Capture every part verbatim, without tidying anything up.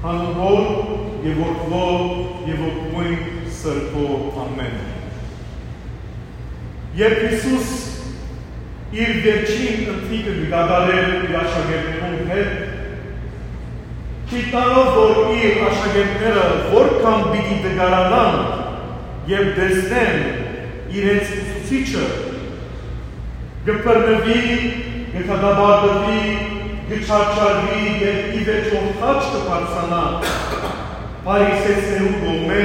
Անուն Հօր եւ Որդւոյ եւ Ոգւոյն Սրբոյ։ Ամէն։ Երբ Յիսուս իր վերջին ընթրիքը կը կատարէր իր աշակերտներուն հետ, գիտնալով որ իր աշակերտները որքան պիտի տկարանան, երբ տեսնեն իրենց ուսուցիչը, կը բռնուի, կը դատապարտուի, կը չարչարուի եւ ի վերջոյ խաչ կը բարձրանայ Փարիսեցիներուն կողմէ,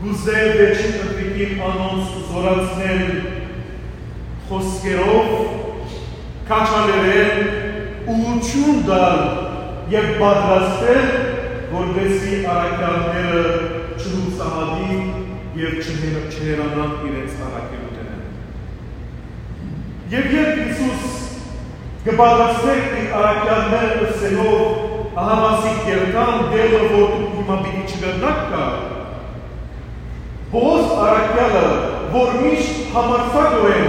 կ'ուզէ վերջին ընթրիքին անոնց զօրացնել խօսքերով, քաջալերել, ուղղութիւն տալ եւ պատրաստել, որպէսզի առաքեալները չյուսահատին եւ չհե-, չհեռանան իրենց առաքելութենէն։ Եւ երբ Յիսուս կը պատրաստէր իր առաքեալները ըսելով, ահա ասիկ երթան, դեր մը որ դուք հիմա պիտի չկրնաք գալ, Պողոս առաքեալը, որ միշտ համարձակօրէն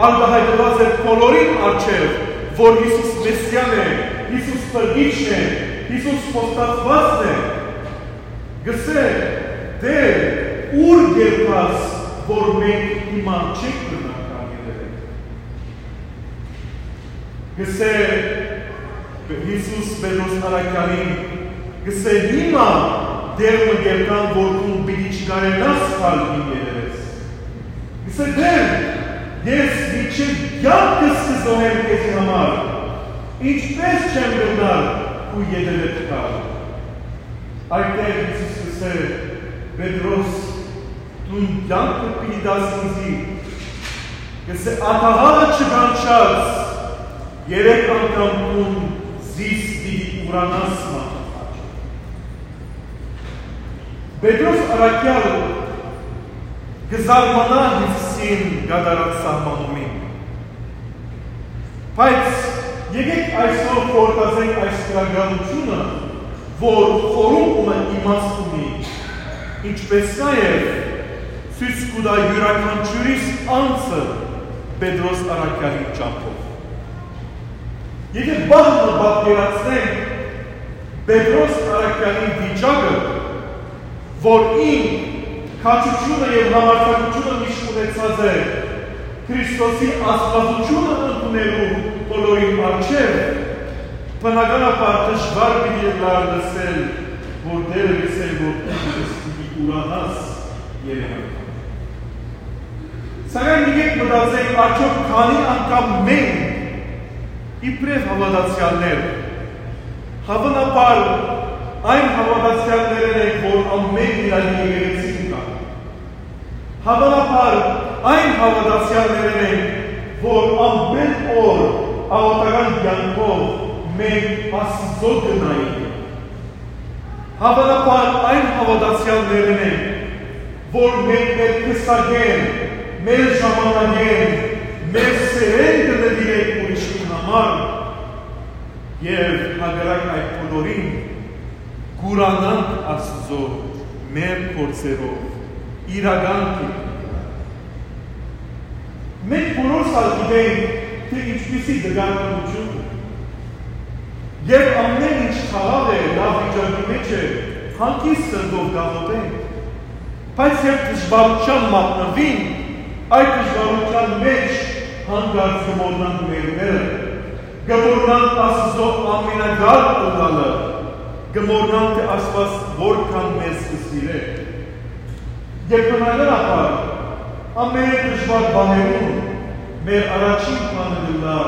արտայայտուած էր բոլորին առջեւ, որ Յիսուս Մեսիան է, Յիսուս Փրկիչն է, Յիսուս խոստացուածն է, կ'ըսէ. «Տէր, ո՞ւր կ'երթաս, որ մենք հիմա չենք կրնար գալ ետեւէդ»։ Կ'ըսէ Յիսուս Պետրոս առաքեալին, կ'ըսէ. «Հիմա դեր մը կ'երթան, որ դուն պիտի չկարենաս գալ իմ ետեւէս»։ Կ'ըսէ. «Տէր, ես մինչեւ կեանքս կը զոհեմ քեզի համար, ինչպէս չեմ կրնար քու ետեւէդ գալ»։ Այդտեղ Յիսուս կ'ըսէ. «Պետրոս, դուն կեանքդ պիտի տաս ինծի»։ Կ'ըսէ. «Ատաղալը չկանչած, երեք անգամ դուն զիս պիտի ուրանաս մարդու խաչը»։ Պետրոս առաքեալ կը զարմանայ Յիսուսին կատարած սահմանումին։ Բայց եկէք այսօր խորհրդածենք այս գրականութիւնը, որ խորհուրդը իմաստ ունի, ինչպէս նաեւ ցոյց կու տայ իւրաքանչիւրիս անձը Պետրոս առաքեալին ճամբով։ Եթէ պահ մը պատկերացնենք Պետրոս առաքեալին վիճակը, որ ինք քաջութիւնը եւ համարձակութիւնը միշտ ունեցած է Քրիստոսի աստվածութիւնը ընդունելու բոլորին առջեւ, բնականաբար դժուար պիտի ըլլար լսել, որ Տէրը կ'ըսէր, որ դու պիտի ուրանաս երեք անգամ։ Սակայն եկեք մտածենք, արդյոք քանի՞ անգամ մենք, իբրեւ հաւատացեալներ, Հաւանաբար այն հաւատացեալներէն ենք, որ ամէն Իրանի եկեղեցին կայ։ Հաւանաբար այն հաւատացեալներէն ենք, որ ամէն օր աղօթական կեանքով մենք Աստուծոյ կը նայենք։ Հաւանաբար այն հաւատացեալներէն ենք, որ մենք մեր քսակէն, մեր ժամանակէն, մեր սէրէն կը նուիրենք ուրիշին համար, եւ հակառակ այդ բոլորին, կ'ուրանանք Աստուծոյ մեր գործերով, իրական կերպով։ Մենք բոլորս ալ գիտենք, թէ ինչպիսի դժուարութիւն է։ Երբ ամէն ինչ խաղաղ է, լաւ վիճակի մէջ է, հանգիստ սրտով կ'աղօթենք։ Բայց երբ դժուարութեան մատնուինք, այդ դժուարութեան մէջ հանկարծ կը մոռնանք մեր Տէրը, կը մոռնանք Աստուծոյ ամենակարճ ըլլալը, կը մոռնանք թէ Աստուած որքան մեզ կը սիրէ։ Եւ բնականաբար, ամէն դժուար պահերուն մեր առաջին բանը կ'ըլլայ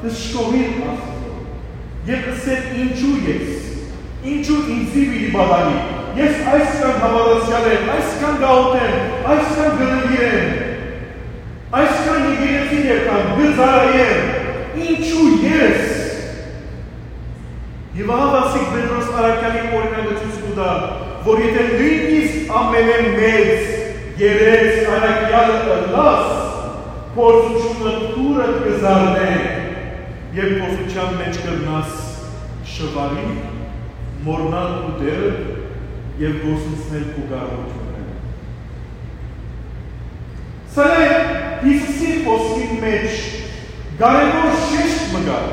դժգոհիլ Աստուծոյ եւ ըսել. «Ինչո՞ւ ես, ինչո՞ւ ինծի պիտի պատանի, ես այսքան հաւատացեալ եմ, այսքան կ'աղօթեմ, այսքան կը նուիրեմ, այսքան եկեղեցի կ'երթամ, կը ծառայեմ, ինչո՞ւ ես»։ Եւ ահա ասիկ Պետրոս առաքեալին օրինակը ցոյց կու տայ, որ եթէ նոյնիսկ ամենէն մեծ երես առաքեալը ըլլաս, փորձութիւնը դուռդ կը զարնէ եւ փորձութեան մէջ կրնաս շուարիլ, մոռնալ քու Տէրը եւ կորսնցնել քու կարողութիւնները։ Սակայն Յիսուսի խօսքին մէջ կարեւոր շեշտ մը կայ,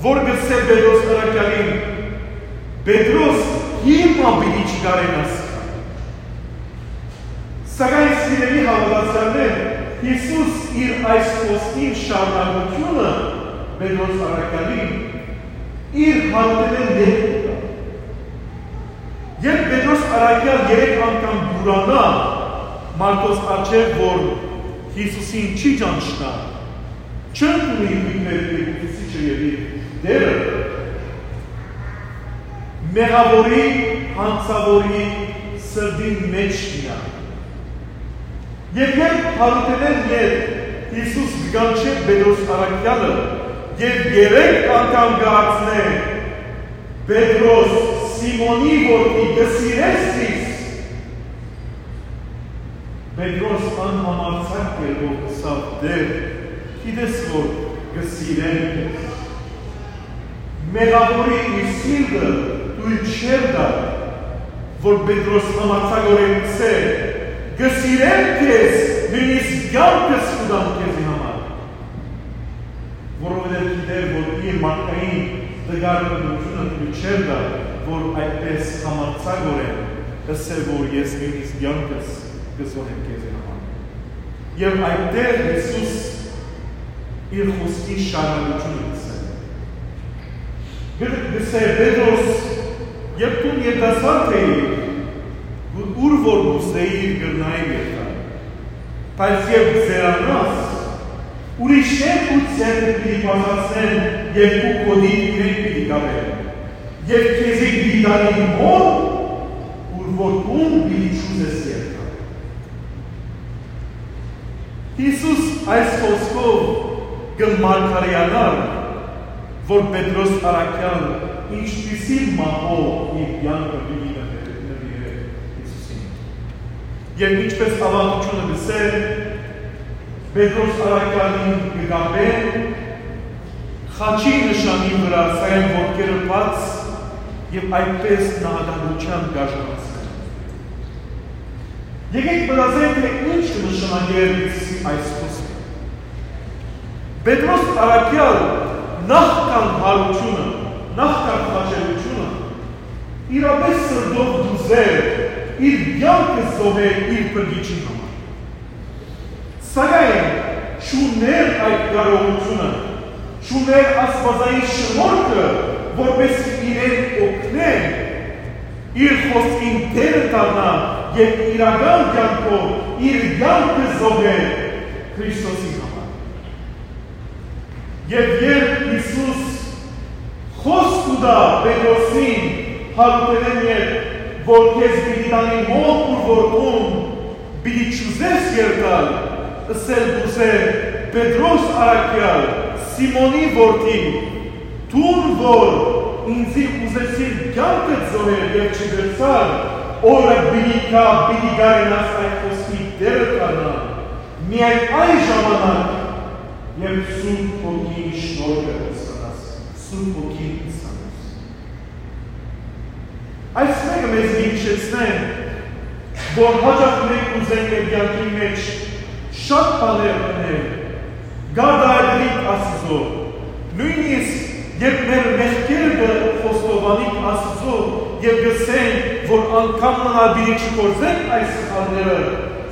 որ կ'ըսէ Պետրոս առաքեալին. Պետրոս հիմա պիտի չկարենաս։ Սակայն, սիրելի հաւատացյալներ, Յիսուս իր այս խոսքին շարունակութիւնը Պետրոս առաքեալին իր հարութենէն ետք կու տայ։ Երբ Պետրոս առաքեալ երեք անգամ կ'ուրանայ մարդոց առջեւ, որ Յիսուսին չի ճանչնայ, չընդունի իր Տէրը, Ուսուցիչը եւ իր Տէրը, մեղաւորի, յանցաւորի սրտին մէջ մնայ։ Եւ երբ հարութենէն ետք Յիսուս կը կանչէ Պետրոս առաքեալը եւ երեք անգամ կը հարցնէ. «Պետրոս, Սիմոնի որդի, կը սիրե՞ս զիս»։ Պետրոս անհամարձակ կերպով ըսաւ. «Տէր, գիտես որ կը սիրեմ քեզ»։ Մեղաւորի իր սիրտը թոյլ չէր տար, որ Պետրոս համարձակօրէն ըսէ. «Կը սիրեմ քեզ, նոյնիսկ կեանքս կու տամ քեզի համար»։ Որովհետեւ գիտէր, որ իր մարդկային տկար ընտրութիւնը թոյլ չէր տար, որ այդպէս համարձակօրէն ըսէ, որ «Ես նոյնիսկ կեանքս կը զոհեմ քեզի համար»։ Եւ այդտեղ Յիսուս իր խօսքի շարունակութիւնը կ'ըսէ։ Կը-, կ'ըսէ. «Պետրոս, երբ դուն երիտասարդ էիր, ու-, ուր որ կ'ուզէիր կրնայիր երթալ, բայց երբ կ'երանաս, ուրիշներ քու ձեռքդ պիտի բացացնեն եւ քու գօտիդ իրենք պիտի կապեն, եւ քեզի պիտի տանին հոն, ուր որ դուն պիտի չուզես երթալ»։ Յիսուս այս խօսքով կը մարգարեանար, որ Պետրոս առաքեալ ինչպիսի մահով իր կեանքը պիտի նվիրէ, նվիրէ Յիսուսին։ Եւ ինչպէս աւանդութիւնը կ'ըսէ, Պետրոս առաքեալին կը կապեն խաչի նշանի վրայ, սակայն ոտքերը բաց, եւ այդպէս նահատակութեան կ'արժանացնեն։ Եկէք մտածենք, թէ ինչ կը նշանակէր Յիսուսի այս խօսքը։ Պետրոս առաքեալ նախքան յարութիւնը, նախքան խաչելութիւնը, իրապէս սրտով կ'ուզէր իր կեանքը զոհել իր փրկիչին համար։ Սակայն չունէր այդ կարողութիւնը, չունէր աստուածային շնորհքը, որպէս զի իրեն օգնէ իր խօսքին դերը դառնայ եւ իրական կեանքով իր կեանքը զոհէ Քրիստոսի համար։ Եւ երբ Յիսուս խօսք կու տայ Պետրոսին, յարութենէն ետք, որ քեզ պիտի տանին հոն, ուր որ դուն պիտի չուզես երթալ, ըսել կ'ուզէ Պետրոս առաքեալ, Սիմոնի որդի, դուն որ ինծի ուզեցիր կեանքդ զոհել եւ չկրցար, օրը պիտի գայ, պիտի կարենաս այդ խօսքի դերը դառնալ, միայն այն ժամանակ, երբ Սուրբ Հոգին շնորհքը կ'ստանաս, Սուրբ Հոգին կ'ստանաս։ Այս մէկը մեզի կը յիշեցնէ, որ յաճախ մենք կ'ուզենք մեր կեանքին մէջ շատ բաներ ընել, կ'արտայայտենք Աստուծոյ, նոյնիսկ երբ մեր մեղքերը կը խոստովանենք Աստուծոյ եւ կ'ըսենք, որ անգամ մը ալ պիտի չգործենք այս սխալները,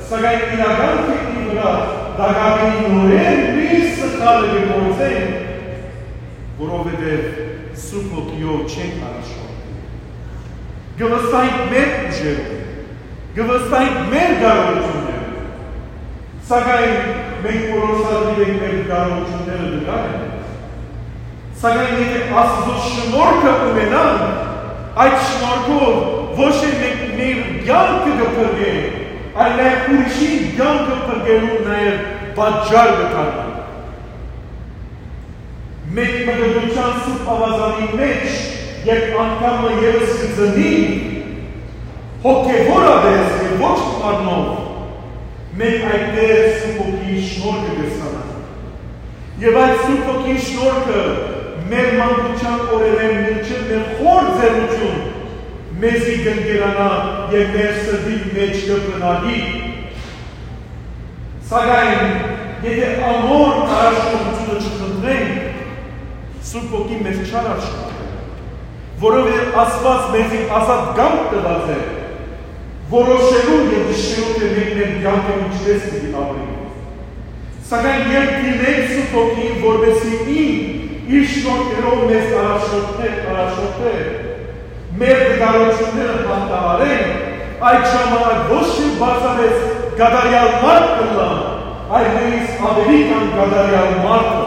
սակայն իրական կեանքի վրայ տակաւին նորէն նոյն սխալը կը գործենք, որովհետեւ Սուրբ Հոգիով չենք առաջնորդի։ Կը վստահենք մեր ուժերով, կը վստահենք մեր կարողութիւններով, սակայն մենք որոշած ենք մեր կարողութիւնները դժուար են։ Սակայն եթէ Աստուծոյ շնորհքը ունենանք, այդ շնորհքով ոչ թե մենք մեր կեանքը կը փրկենք, այլ նաեւ ուրիշին կեանքը փրկելու նաեւ պատճառ կը դառնանք։ Մենք մկրտության Սուրբ Աւազանի մէջ, երբ անգամ մը եւս կը ծնենք, հոգեւորապէս եւ ոչ մարմնով, մենք այդտեղ Սուրբ Հոգիի շնորհքը կ'ստանանք։ Եւ այդ Սուրբ Հոգիի շնորհքը մեր մանկութեան օրերէն մինչեւ մեր խոր ծերունիթ մեզի կ'ընկերանայ եւ մեր սրտին մէջ կը բնակի։ Սակայն, եթէ անոր առաջնորդութիւնը չխնդրենք, Սուրբ Հոգին մեզ չ'արարշնորհ։ որովհետեւ Աստուած մեզի ազատ կամք տուած է որոշելու եւ ճշդելու, թէ մենք մեր կեանքը ինչպէս պիտի ապրենք։ Սակայն երբ դիմենք Սուրբ Հոգիին, որպէսզի ինք իր շնորհքներով մեզ առաջնորդէ, առաջնորդէ, մեր դժուարութիւնները հաղթահարենք, այդ ժամանակ ոչ թէ պարզապէս կատարեալ մարդ կ'ըլլամ, այլ նոյնիսկ աւելի քան կատարեալ մարդը։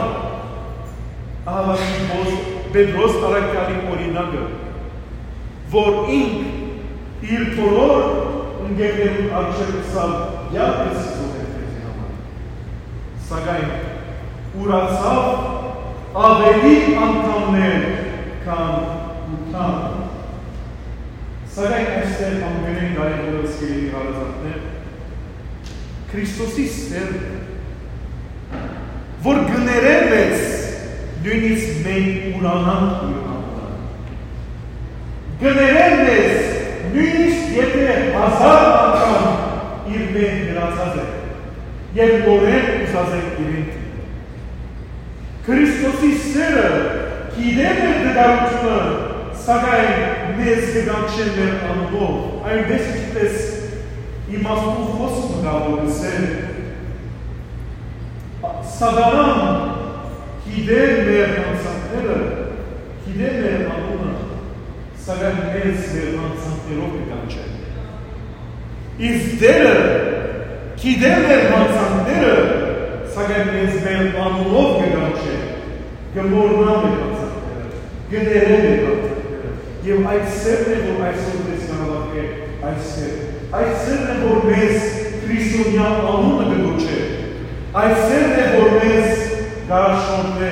Ահա Պետրոս, Պետրոս առաքեալին օրինակը, որ ինք իր բոլոր ընկերներուն առջեւ ըսաւ. «Կեանքը զոհ է քեզի համար»։ Սակայն ուրացաւ աւելի անգամներ, քան ութան։ Սակայն այստեղ ամենէն կարեւորը, սիրելի հարազատներ, Քրիստոսի սէրն է, որ կը ներէ մեզ, նոյնիսկ մենք ուրանանք իր անունը։ Կը ներէ մեզ, նոյնիսկ եթէ հազար անգամ իրմէ հեռացած ենք եւ նորէն ուզած ենք իրեն դիմել։ Քրիստոսի սէրը գիտէ մեր դժուարութիւնը, սակայն մեզ կը կանչէ մեր անունով, այնպէս ինչպէս իմաստուն խօսքը կայ, որ կ'ըսէ. Սատանան գիտէ մեր յանցանքները, գիտէ մեր անունը, սակայն մեզ մեր յանցանքներով կը կանչէ։ Իսկ Տէրը գիտէ մեր յանցանքները, սակայն մեզ մեր անունով կը կանչէ, կը մոռնայ մեր յանցանքները, կը ներէ մեր յանցանքները։ Եւ այդ սէրն է, որ այսօր մեզ կ'անվարկէ այստեղ։ Այդ սէրն է, որ մեզ քրիստոնեայ անունը կը կոչէ։ Այդ սէրն է, որ մեզ կ'առաջնորդէ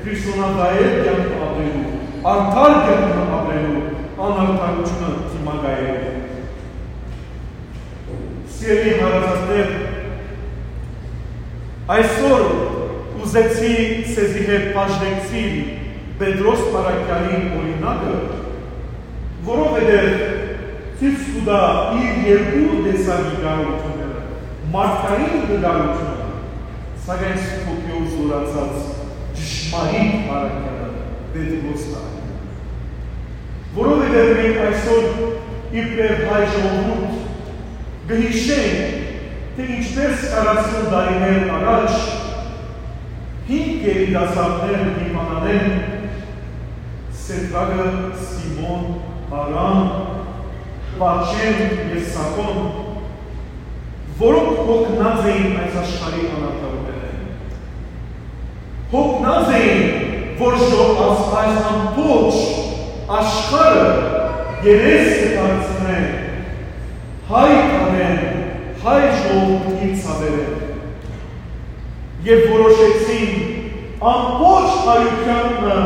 քրիստոնեայ կեանքը ապրելու, արդար կեանքը ապրելու, անարդարութիւնը դիմակայելու։ Սիրելի հարազատներ, այսօր ուզեցի սեզի հետ բաժնեկցիլ Պետրոս առաքեալին օրինակը, որովհետեւ ցոյց կու տայ իր երկու տեսակի կարողութիւնները, մարդկային կարողութիւնը, սակայն Սուրբ Հոգիով զօրացած ճշմարիտ առաքեալը, Պետրոս առաքեալը։ Որովհետեւ մենք այսօր իբրեւ հայ ժողովուրդ կը յիշենք, թէ ինչպէս քառասուն տարիներ առաջ հինգ երիտասարդներ Լիբանանէն, Սեդրակը, Սիմոն, Արամ, Պաչեն եւ Սաքոն, որոնք յոգնած էին այս աշխարհի անարդարութենէն, յոգնած էին, որ ժո-, աս-, այս ամբողջ աշխարհը երես կը դարձնէ հայ թաղէն, հայ ժողովուրդին ցաւերէն, եւ որոշեցին ամբողջ հայութեանը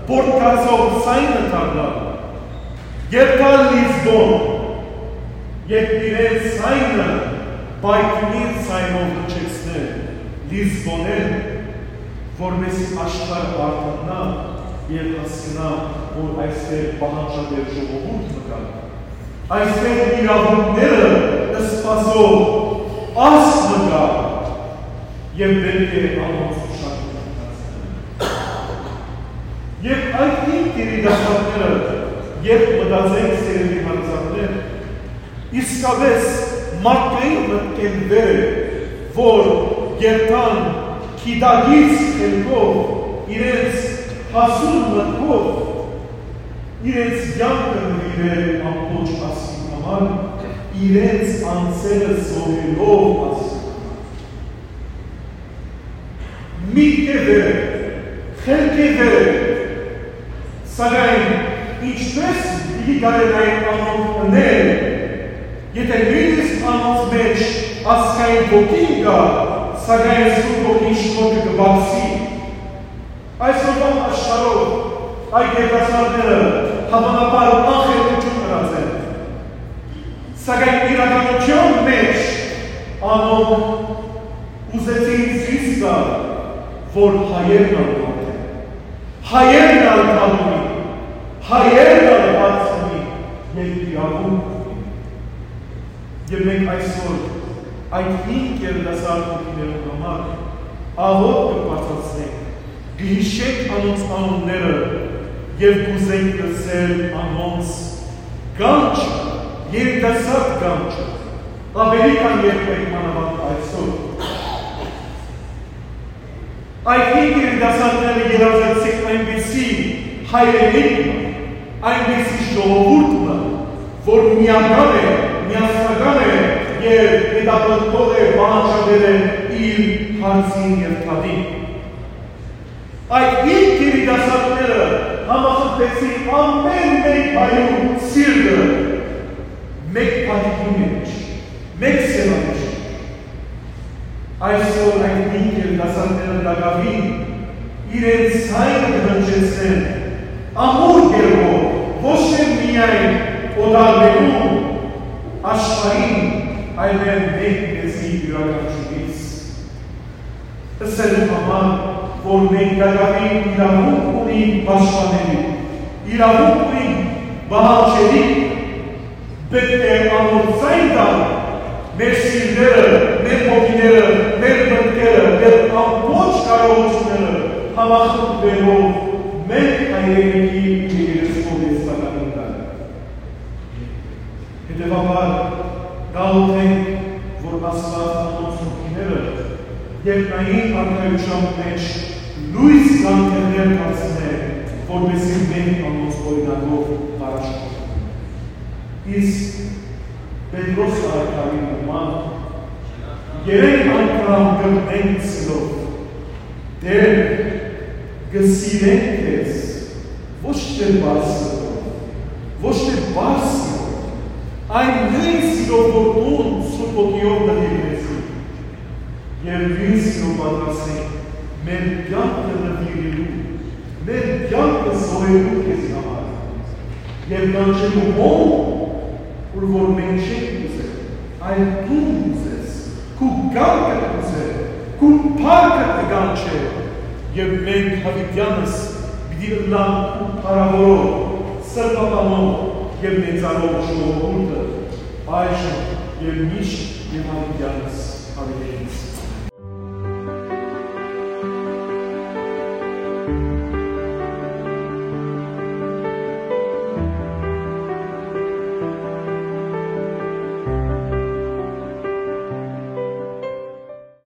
պոռթկացող ձայնը դառնալ, երթալ Լիզբոն, եւ իրենց ձայնը պայթյունի ձայնով հնչեցնել Լիզբոնէն, որպէս զի աշխարհը արտաննայ եւ հասկնայ, որ այստեղ պահանջատեր ժողովուրդ մը կայ, այստեղ իրաւունքները սպասող ազգ մը կայ, եւ պէտք է անոնց ուշադրութիւնը դարձնել։ Եւ այդ հինգ երիտասարդները, երբ մտածենք, սիրելի հարազատներ, իսկապէս մարդկային մտքէն վեր է, որ երթան գիտակից խելքով, իրենց հասուն մտքով, իրենց կեանքը նուիրել ամբողջ ազգին համար, իրենց անձերը զոհելով ազգին համար։ Միտքէ վեր է, խելքէ վեր է, սակայն ինչպէս պիտի կարենային անոնք ընել, եթէ նոյնիսկ անոնց մէջ ազգային ոգին կայ, սակայն Սուրբ Հոգին շնորհքը կը պակսի։ Այսօրուան աշխարհով այդ երիտասարդները հաւանաբար անխելքութիւն ըրած են, սակայն իրականութեան մէջ անոնք ուզեցին ցոյց տալ, որ հայերն ալ մարդ են, հայերն ալ բան ունին, հայերն ալ հարց ունին եւ իրաւունք ունին։ Եւ մենք այսօր այդ հինգ երիտասարդ հոգիներուն համար աղօթք կը բարձրացնենք, կը յիշենք անոնց անունները, Եւ կ'ուզենք լսել անոնց կանչը, երիտասարդ կանչը, աւելի քան երբեք, մանաւանդ այսօր։ Այդ հինգ երիտասարդները երազեցին այնպիսի հայրենիք մը, այնպիսի ժողովուրդ մը, որ միական է, միասնական է եւ հետապնդող է, պահանջատեր է իր հարցին եւ դատին։ Այդ հինգ երիտասարդները համախմբեցին ամէն մէկ հայու սիրտը մէկ բանիկի մէջ, մէկ սեւանեշ։ Այսօր այդ հինգ երիտասարդները տակաւին իրենց ձայնը կը հնչեցնեն ամուր կերպով, ոչ թե միայն օտարներուն, աշխարհին, այլեւ մենք մեզի իւրաքանչիւրիս։ Ըսելու համար, որ մենք տակաւին իրաւունք ունենք պաշտպաների, իրաւունք ունենք պահանջելի, պէտք է անոր ձայն տալ մեր սիրտերը, մեր հոգիները, մեր մտքերը, մեր ամբողջ կարողությունները համախմբելով մեր հայրենիքի երեսով ես տակաւին տալ։ Հետեւաբար, գաղութենք, որ Աստուած անոնց հոգիները երկնային արքայութեան մէջ լոյս գանձերներ դարձնէ, որպէսզի մենք անոնց օրինակով առաջնորդենք։ Իսկ Պետրոս առաքյալին նման, երեք անգամ կրկնենք սիրով. «Տէր, կը սիրենք քեզ», ոչ թե պարզ սիրով, ոչ թե պարզ սիրով, այն նոյն սիրով, որ դուն Սուրբ Հոգիով նուիրեցիր, եւ նոյն սիրով պատրաստ ենք մեր կեանքը նուիրելու, մեր կեանքը զոհելու քեզի համար, եւ կանչելու հոն, ուր որ մենք չենք ուզեր, այլ դուն ուզես, քու կամքը ուզեր, քու փառքը կը կանչէ, եւ մենք յաւիտեանս պիտի ըլլանք քու փառաւորող, սրբաբանող եւ մեծարող ժողովուրդը, այժմ եւ միշտ եւ յաւիտեանս յաւիտենս։